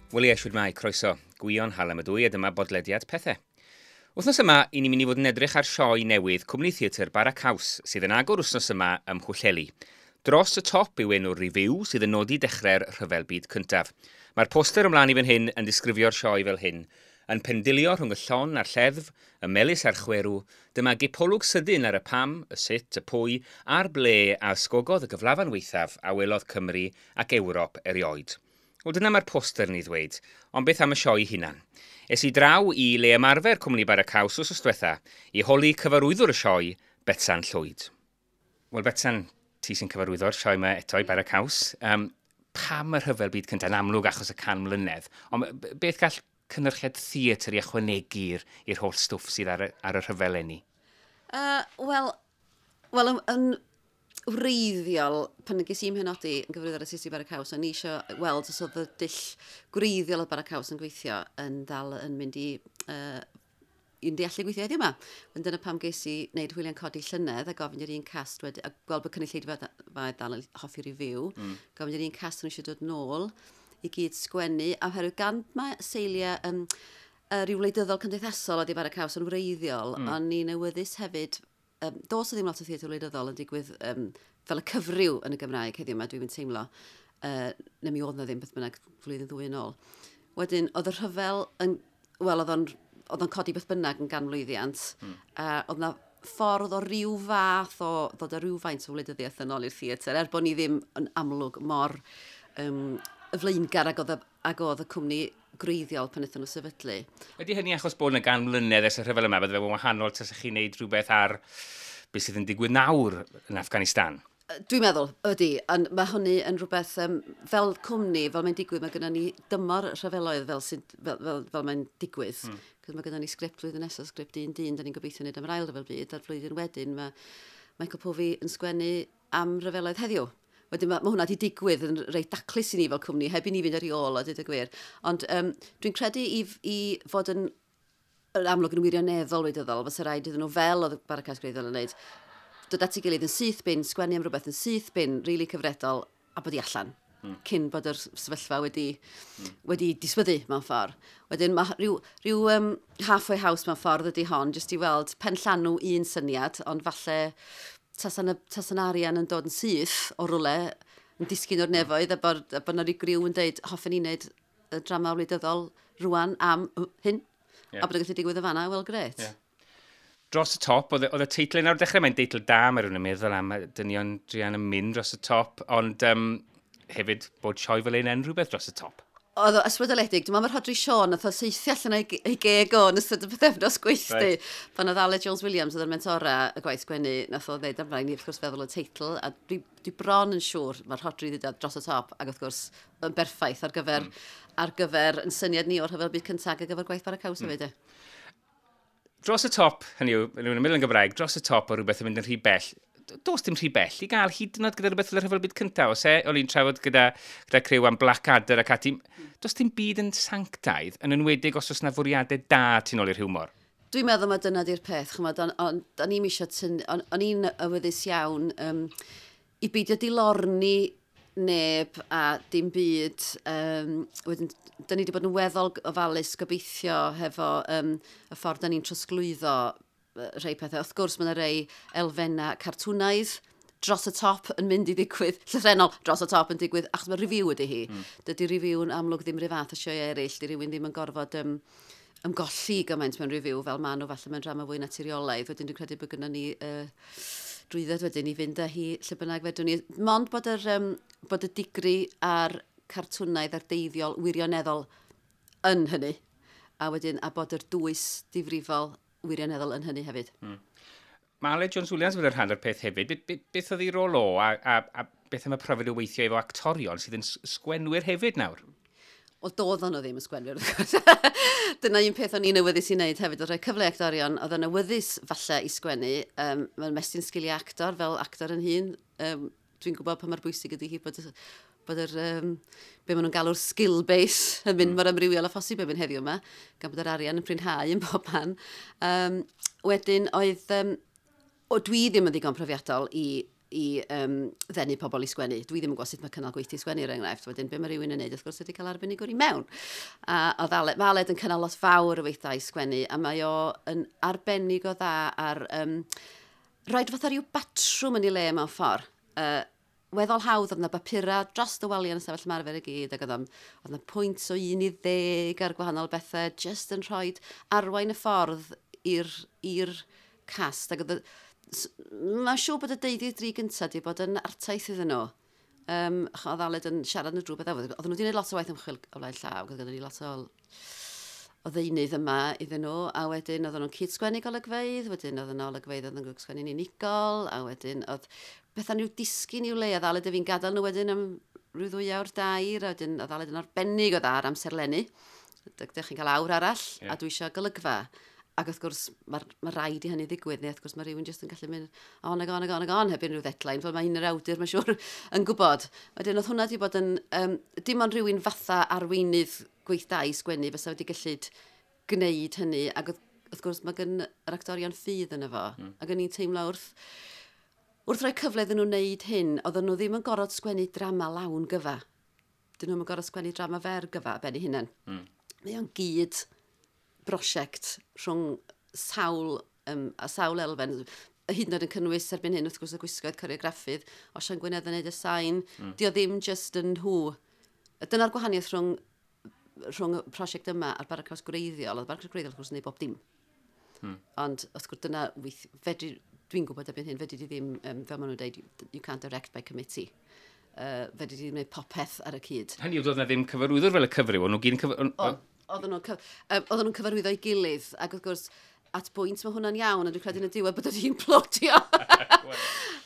Wel ie, shwd mae, croeso. Gwion Hallam ydw i a dyma bodlediad pethau. Wythnos yma, i ni'n mynd i fod yn edrych ar sioe newydd Cwmni Theatr Bara Caws, sydd yn agor wythnos yma ym Mhwllheli. Dros y Top yw enw'r revue sydd yn nodi dechrau'r Rhyfel Byd Cyntaf. Mae'r poster ymlaen i fan hyn yn disgrifio'r sioe fel hyn. Yn pendilio rhwng y llon a'r lleddf, y melys a'r chwerw, dyma gipolwg sydyn ar y pam, y sut, y pwy, a'r ble a ysgogodd y gyflafan weithaf a welodd Cymru ac Ewrop erioed. Wel, dyna mae'r poster yn ei ddweud, ond beth am y sioe hunan? Es i draw i le ymarfer Cwmni Bara Caws wsos diwetha i holi cyfarwyddwr y sioe, Betsan Llwyd. Wel, Betsan, ti sy'n cyfarwyddo'r sioe yma eto i Bara Caws. Pam y Rhyfel Byd Cyntaf? Yn amlwg achos y 100 mlynedd. Ond beth gall cynhyrchiad theatr i ychwanegu'r i'r holl stwff sydd ar y rhyfel eleni? Wel, yn wreiddiol, pan ges i'n penodi yn gyfarwyddwr artistig Bara Caws, o'n i eisiau weld os oedd y dull gwreiddiol o Bara Caws yn gweithio yn dal yn mynd i mynd i allu gweithio heddiw yma. Ond dyna pam ges i wneud Hwyliau'n Codi llynedd a gofyn i'r un cast wedi, a gweld bod cynulleidfa dal yn hoffi revue, gofyn i'r un cast nhw eisiau dod nôl i gyd sgwennu, a oherwydd gan mae seiliau rhyw wleidyddol cymdeithasol oedd i Bara Caws yn wreiddiol, o'n i'n awyddus hefyd, does o ddim lot o theatr wleidyddol yn digwydd fel y cyfryw yn y Gymraeg heddiw yma, dwi'n teimlo. Neu mi oedd na ddim beth bynnag flwyddyn ddwy yn ôl. Wedyn, oedd y rhyfel yn, wel, oedd o'n codi beth bynnag yn ganmlwyddiant, a oedd na ffordd o ryw fath o ddod â rhywfaint o wleidyddiaeth yn ôl i'r theatr, er bod ni ddim yn amlwg mor y flaengar ag oedd y cwmni gwreiddiol pan wnaethon nhw sefydlu. Ydy hynny achos bod yna 100 mlynedd ers y rhyfel yma, bydde fe'n wahanol tasech chi'n neud rhywbeth ar beth sydd yn digwydd nawr yn Afghanistan? Dwi'n meddwl, ydy, ond mae hynny yn rhywbeth, fel cwmni, fel mae'n digwydd, mae gennym ni dymor rhyfeloedd fel mae'n digwydd. Cos mae gennym ni sgript flwyddyn nesaf, sgript un dyn, da ni'n gobeithio wneud am yr Ail Ryfel Byd, a'r flwyddyn wedyn mae Michael Povey yn sgwennu am ryfeloedd heddiw. Wedyn mae hwnna wedi digwydd yn reit daclus i ni fel cwmni, heb i ni fynd ar ei ôl o, dweud y gwir. Ond dwi'n credu i fod yn amlwg yn wirioneddol wleidyddol, fysa rhaid iddyn nhw fel oedd Bara Caws gwreiddiol yn wneud, dod at ei gilydd yn syth bin, sgwennu am rhywbeth yn syth bin, rili really cyfredol, a bod i allan cyn bod yr sefyllfa wedi diswyddu mewn ffordd. Wedyn mae rhyw halfway house mewn ffordd ydy hon, jyst i weld pen llanw un syniad, ond falle tasa'n arian yn dod yn syth o rwle, yn disgyn o'r nefoedd, a bod 'na ryw griw yn deud, "Hoffen ni wneud y drama wleidyddol rwan am hyn," a bod yn gallu digwydd y fanna, wel, grêt. Dros y Top, oedd y teitl yna o'r dechrau, mae'n deitl da, mae rhywun yn meddwl am y dynion druan yn mynd dros y top, ond hefyd bod sioe fel un yn rhywbeth dros y top. Oedd o ysbrydoledig. Dwi'n meddwl mae Rhodri Siôn nath o saethu allan ei geg o yn ystod y pythefnos gweithdy. Pan oedd Aled Jones Williams oedd yn mentora y gwaith sgwennu, nath o ddeud amdano ni wrth gwrs feddwl y teitl, a dwi bron yn siŵr mae'r Rhodri ddweud "Dros y Top", ac wrth gwrs yn berffaith ar gyfer yn syniad ni o'r Rhyfel Byd Cyntaf ar gyfer gwaith Bara Caws hefyd. Dros y top, hynny yw, hynny yw'n yn Gymraeg, dros y top o rhywbeth yn mynd yn rhy bell. Does dim rhy bell i gael hyd yn oed gyda rhywbeth fel y Rhyfel Byd Cyntaf. Os e, o'n i'n trafod gyda criw am Blackadder ac ati. Does dim byd yn sanctaidd, yn enwedig os oes na fwriadau da tu nôl i'r hiwmor. Dwi'n meddwl mae dyna di'r peth, ch'mod, o'n i'm eisiau tyn, o'n i'n awyddus iawn i beidio dilorni neb a dim byd. Wedyn, da ni wedi bod yn weddol ofalus gobeithio hefo y ffordd da ni'n trosglwyddo rhai pethau. Wrth gwrs, mae yna rei elfennau cartwnaidd dros y top yn mynd i ddigwydd, llythrennol dros y top yn digwydd, achos mae revue ydy hi. Dydy revue yn amlwg ddim rhyw fath o sioe eraill, di rhywun ddim yn gorfod ymgolli gymaint mewn revue fel maen nhw falle mewn drama fwy naturiolaidd. Wedyn dwi'n credu bod gynnon ni drwydded wedyn i fynd â hi lle bynnag fedrwn ni. Mond bod y digri a'r cartwnaidd a'r deifiol wirioneddol yn hynny. A wedyn, a bod yr dwys difrifol wirioneddol yn hynny hefyd. Mae Aled Jones Williams wedi rhan o'r peth hefyd. Beth oedd ei rôl o a beth am y profiad o weithio efo actorion sydd yn sgwenwyr hefyd nawr? Wel, doedd nhw ddim yn sgwenwyr, wrth gwrs. Dyna un peth o'n i'n awyddus i wneud hefyd, oedd rhoi cyfle i actorion, oedd yn awyddus falle i sgwennu. Mae'n mestyn sgiliau actor fel actor yn hun. Dwi'n gwybod pa mor bwysig ydy hi bod yr, be maen nhw'n galw'r skill base yn mynd mor amrywiol â phosib erbyn heddiw yma, gan bod yr arian yn prinhau yn bob man. Wedyn oedd, o, dwi ddim yn ddigon profiadol i i ddenu pobl i sgwennu. Dwi ddim yn gwybod sut mae cynnal gweithdy sgwennu, er enghraifft. Wedyn, be mae rhywun yn neud, wrth gwrs, ydy cael arbenigwr i mewn. A oedd Aled, mae Aled yn cynnal lot fawr o weithdai sgwennu, a mae o yn arbennig o dda ar rhoid fatha rhyw batrwm yn ei le mewn ffordd. Weddol hawdd, oedd yna bapura dros y waliau yn y stafell ymarfer i gyd, ac oedd yna pwynt o 1 i 10 ar gwahanol bethau, just yn rhoi arwain y ffordd i'r cast. Ac mae'n siŵr bod y deuddydd dri gyntaf wedi bod yn artaith iddyn nhw. Oedd Aled yn siarad nhw drwy beth. Oedden nhw wedi gwneud lot o waith ymchwil o flaen llaw, oedd gyda ni lot o ddeunydd yma iddyn nhw, a wedyn oedden nhw'n cyd-sgwennu golygfeydd, wedyn oedden nhw olygfeydd oedden nhw'n sgwennu'n unigol, a wedyn oedd bethau nhw disgyn i'w le, a Aled a fi'n gadael nhw wedyn am rhyw 2 awr 3, a wedyn oedd Aled yn arbennig o dda ar amserlennu. Dych chi'n cael awr arall, a dwi eisiau golygfa. Ac wrth gwrs, mae rhaid i hynny ddigwydd, neu wrth gwrs mae rhywun jyst yn gallu mynd on ag on ag on ag on heb unrhyw deadline, fel mae un yr awdur, mae'n siŵr, yn gwybod. Wedyn oedd hwnna wedi bod yn, dim ond rhywun fatha arweinydd gweithdai sgwennu fysa wedi gallu gwneud hynny, ac wrth gwrs mae gen yr actorion ffydd yno fo. Ac o'n i'n teimlo wrth roi cyfle iddyn nhw wneud hyn, oedden nhw ddim yn gorfod sgwennu drama lawn gyfa. Dyn nhw'n gorfod sgwennu drama fer gyfa ben eu hunain. Mae o'n gyd brosiect rhwng sawl, a sawl elfen, hyd yn oed yn cynnwys erbyn hyn, wrth gwrs, y gwisgoedd, coreograffydd, Osian Gwynedd yn neud y sain. Di o ddim just yn nhw. Dyna'r gwahaniaeth rhwng y prosiect yma a'r Bara Caws gwreiddiol. Oedd y Bara Caws gwreiddiol, wrth gwrs, yn neud bob dim. Ond, wrth gwrs, dyna, fedri, dwi'n gwybod erbyn hyn, fedri di ddim, fel maen nhw'n dweud, you can't direct by committee. Fedri di ddim gwneud popeth ar y cyd. Hynny yw, doedd na ddim cyfarwyddwr fel y cyfryw, o'n nhw gyd yn Oedden nhw'n cyfarwyddo ei gilydd, ac wrth gwrs, at bwynt mae hwnna'n iawn, a dwi'n credu yn y diwedd bod wedi implodio.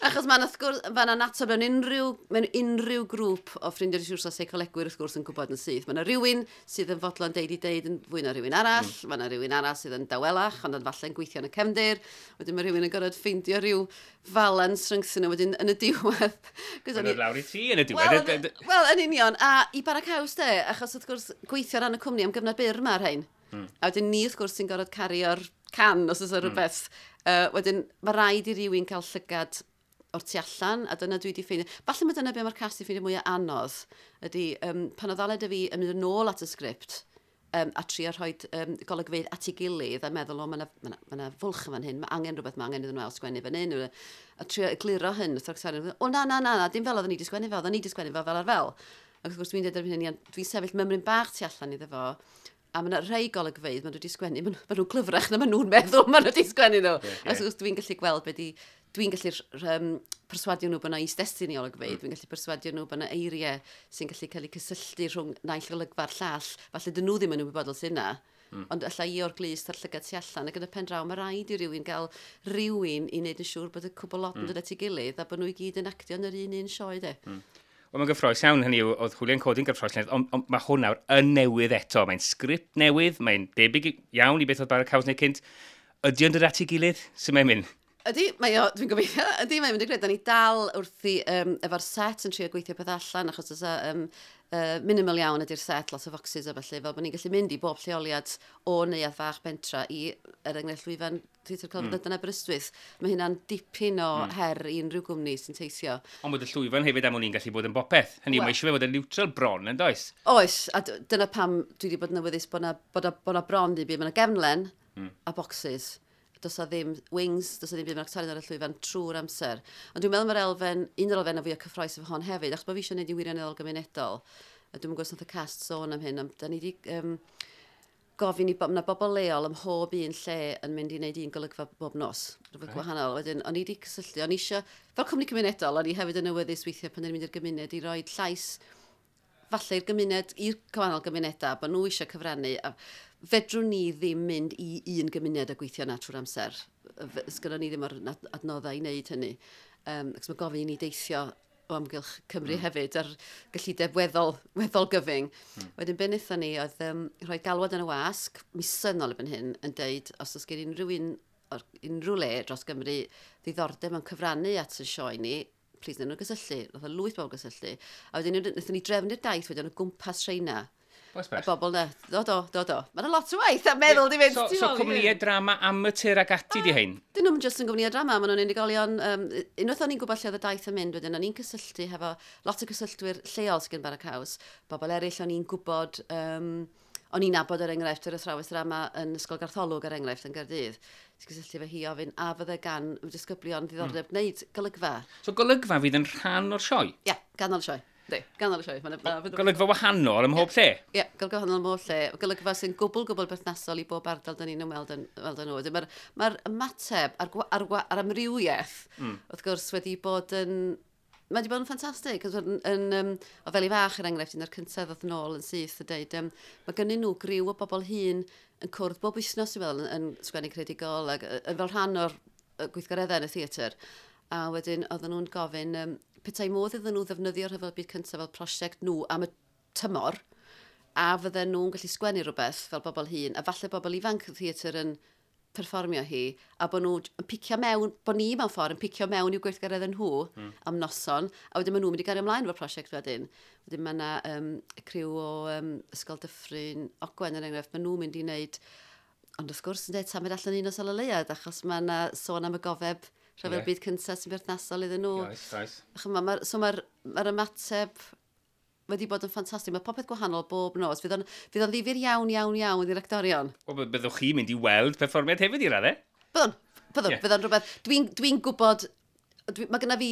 Achos mae'n, wrth gwrs, mae'n annatod mewn unrhyw grŵp o ffrindiau rhywun a seicolegwyr wrth gwrs yn gwybod yn syth. Mae yna rhywun sydd yn fodlon deud i deud yn fwy na rhywun arall, mae yna rhywun arall sydd yn dawelach, ond yn falle'n gweithio yn y cefndir. Wedyn mae rhywun yn gorfod ffeindio rhyw falans rhyngthyn nhw wedyn yn y diwedd. 'Cos o'n Mae'n lawr i ti yn y diwedd. Wel, yn union. A i Bara Caws de, achos wrth gwrs gweithio ar ran y cwmni am gyfnod byr mae'r rhain. A wedyn ni wrth gwrs sy'n gorfod cario'r can os oes rhywbeth. Wedyn mae rhaid i rywun cael llygad o'r tu allan, a dyna dwi wedi ffeindio. Falle mae dyna be mae'r cast i ffeindio mwyaf anodd, ydy pan oedd Aled a fi yn mynd yn ôl at y sgript, a trio rhoi golygfeydd at ei gilydd a meddwl, o, mae yna ma ma fwlch yn fan hyn, mae angen rhywbeth, mae angen iddyn nhw ail sgwennu fan hyn. A trio egluro hyn, wrth yr o, na, na, na, na, dim fel oedden ni wedi sgwennu fel, oedden ni wedi sgwennu fel fel ar fel. Ac wrth gwrs dwi'n dweud erbyn hyn, dwi'n sefyll mymryn bach tu allan iddo fo, a mae yna rhai golygfeydd, maen nhw wedi sgwennu, maen nhw'n glyfrach na maen nhw'n meddwl maen nhw wedi sgwennu nhw. Yeah. A wrth gwrs dwi'n gallu gweld be di, dwi'n gallu perswadio nhw bod yna is-destun i olygfeydd, dwi'n gallu perswadio nhw bod yna eiriau sy'n gallu cael eu cysylltu rhwng naill olygfa'r llall. Falle dyn nhw ddim yn ymwybodol sy'n yna. Ond alla i o'r glust a'r llygad tu allan, ac yn y pen draw, mae rhaid i rywun gael rhywun i wneud yn siŵr bod y cwbl lot yn dod at ei gilydd a bod nhw i gyd yn actio yn yr un un sioe, de. Wel, mae'n gyffrous iawn, hynny yw, oedd Hwyliau'n Codi'n gyffrous, ond mae hwn nawr yn newydd eto. Mae'n sgript newydd, mae'n debyg iawn i beth oedd Bara Caws neu cynt. Ydy o'n dod at ei gilydd? Sut mae'n mynd? Ydy, mae o, dwi'n gobeithio, ydy, mae'n mynd i greu. Da ni dal wrthi efo'r set yn trio gweithio peth allan, achos oes minimal iawn ydy'r set, lot o foxes a felly, fel bod ni'n gallu mynd i bob lleoliad o neuadd fach bentra i, er enghraifft, llwyfan Theatr Celfyddydau yn Aberystwyth. Mae hynna'n dipyn o her i unrhyw gwmni sy'n teithio. Ond bod y llwyfan hefyd am wn i'n gallu bod yn bopeth. Hynny yw, mae eisiau fe fod yn neutral bron, yn does? Oes, a dyna pam dwi wedi bod yn awyddus bod na bron ddim byd. Mae yna gefnlen a boxes. Does 'na ddim wings, does 'na ddim byd, mae'r actorion ar y llwyfan trwy'r amser. Ond dwi'n meddwl mae'r elfen, un o'r elfennau fwyaf cyffrous efo hon hefyd, achos bod fi eisiau gwneud i wirioneddol gymunedol, a dwi'n gwybod os nath y cast sôn am hyn, ond da ni wedi gofyn i ma' 'na bobl leol ym mhob un lle yn mynd i wneud un golygfa bob nos, rhywbeth gwahanol. Wedyn, o'n i wedi cysylltu, o'n i eisiau, fel cwmni cymunedol, o'n i hefyd yn awyddus weithiau pan o'n i'n mynd i'r gymuned i roi llais falle i'r gymuned, i'r gwahanol gymunedau, bod nhw eisiau cyfrannu. A fedrwn ni ddim mynd i un gymuned a gweithio na trwy'r amser. Sgynnon ni ddim o'r adnoddau i wneud hynny. Ac mae gofyn i ni deithio o amgylch Cymru hefyd ar gyllideb weddol gyfyng. Wedyn be wnaethon ni oedd rhoi galwad yn y wasg, misoedd nôl erbyn hyn, yn deud os oes gen unrhyw un o'r unrhyw le dros Gymru ddiddordeb mewn cyfrannu at y sioe ni, plis wnawn nhw gysylltu. Nath o lwyth bobl gysylltu. A wedyn wnaethon ni drefnu'r daith wedyn o gwmpas rheina. Y bobl na. Do, do, do, do. Mae'n lot o waith a meddwl di fynd. So cwmnïau drama amatur ag ati di hein? Dyn nhw'n just yn gwmnïau drama, maen nhw'n unigolion. Unwaith o'n i'n gwybod lle oedd y daith yn mynd wedyn, o'n i'n cysylltu hefo lot o gysylltwyr lleol sydd gen Bara Caws. Bobl eraill o'n i'n gwybod, o'n i'n nabod er enghraifft yr athrawes drama yn Ysgol Gartholwg er enghraifft yn Gaerdydd. Ti'n cysylltu efo hi ofyn a fydde gan y disgyblion ddiddordeb gwneud golygfa. So golygfa fydd yn rhan o'r sioe? Ie, yeah, ganol y sioe. Yndi, ganol y sioe. Golygfa wahanol ym mhob lle? Ie, yeah, golygfa wahanol ym mhob lle. Golygfa sy'n gwbl, gwbl berthnasol i bob ardal dyn ni'n ymweld yn, ymweld â nhw. Mae'r ma ymateb a'r, ar, ar amrywiaeth, wrth gwrs, wedi bod yn... Mae wedi bod yn ffantastig. Yn, yn, um, o fel i fach, er enghraifft, un o'r cyntaf ddoth yn ôl yn syth a deud, mae gynnu nhw griw o bobl hŷn yn cwrdd bob wythnos, dwi'n meddwl, yn sgwennu creadigol ac yn fel rhan o'r gweithgareddau yn y theatr. A wedyn oedden nhw'n gofyn, petai modd iddyn nhw ddefnyddio'r rhyfel byd cyntaf fel prosiect nhw am y tymor, a fydden nhw'n gallu sgwennu rhywbeth fel bobl hŷn, a falle bobl ifanc y theatr yn perfformio hi, a bod nhw yn picio mewn, bod ni mewn ffordd yn picio mewn i'w gweithgareddau nhw am noson, a wedyn maen nhw'n mynd i gario ymlaen efo'r prosiect wedyn. Wedyn mae yna criw o Ysgol Dyffryn Ogwen er enghraifft, maen nhw'n mynd i wneud, ond wrth gwrs yn dweud, tan mynd allan un o Sal y Leuad, achos mae yna sôn am y gofeb rhyfel byd cyntaf sy'n berthnasol iddyn nhw. Oes, oes. So mae'r ma ymateb wedi bod yn ffantastig. Mae popeth gwahanol bob nos. Fydd o'n ddifyr iawn, iawn, iawn i'r actorion. Wel, byddwch chi'n mynd i weld perfformiad hefyd i raddau? Byddwn, byddwn, yeah. Byddwn rhywbeth. Dwi'n dwi gwybod, mae gynna fi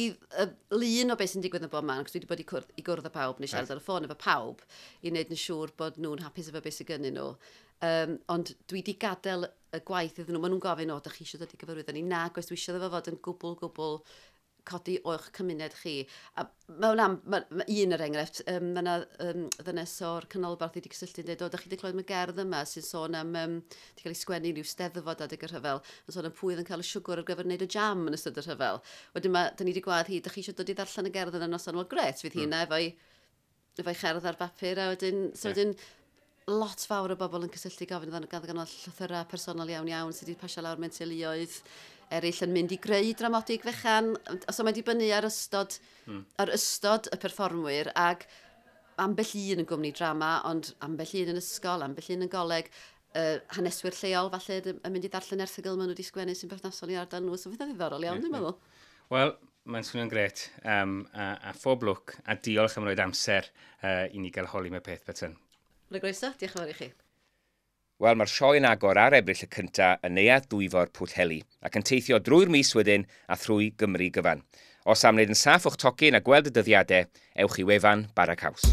lun o beth sy'n digwydd yn bob man, cos dwi wedi bod i gwrdd â pawb, neu siarad ar y ffôn efo pawb, i wneud yn siŵr bod nhw'n hapus efo beth sydd gynnyn nhw. Ond dwi wedi gadael y gwaith iddyn nhw. Maen nhw'n gofyn, o, da chi eisiau dod i gyfarwyddo ni? Na, gwes dwi eisiau iddo fo fod yn gwbl, gwbl codi o'ch cymuned chi. A mae hwnna, ma un er enghraifft, mae yna ddynes o'r canolbarth wedi cysylltu yn dweud, o, da chi wedi clywed am y gerdd yma sy'n sôn am, wedi cael ei sgwennu rhyw steddfod adeg y rhyfel, yn sôn am pwy oedd yn cael y siwgr ar gyfer wneud y jam yn ystod y rhyfel. Wedyn mae, da ni wedi gwadd hi, da chi eisiau dod i ddarllen y gerdd yna noson? Wel, gret, fydd hi yna efo'i efo'i cherdd ar bapur, a wedyn, so wedyn, lot fawr o bobl yn cysylltu gofyn gan gan llythyrau personol iawn iawn sydd wedi pasio lawr mewn teuluoedd eraill yn mynd i greu dramodig fechan. So mae'n dibynnu ar ystod, ar ystod y perfformwyr ac ambell un yn gwmni drama, ond ambell un yn ysgol, ambell un yn goleg, haneswyr lleol falle yn mynd i ddarllen erthygl maen nhw wedi sgwennu sy'n berthnasol i ardal nhw. So fydd o'n ddiddorol iawn, dwi'n meddwl. Wel, mae'n swnio'n gret. A phob lwc, a diolch am roed amser i ni gael holi mewn peth, Betsan. Mae'n groeso, diolch yn fawr i chi. Wel, mae'r sioe yn agor ar Ebrill y cynta yn Neuadd Dwyfor Pwllheli ac yn teithio drwy'r mis wedyn a thrwy Gymru gyfan. Os am wneud yn saff o'ch tocyn a gweld y dyddiadau, ewch i wefan Bara Caws.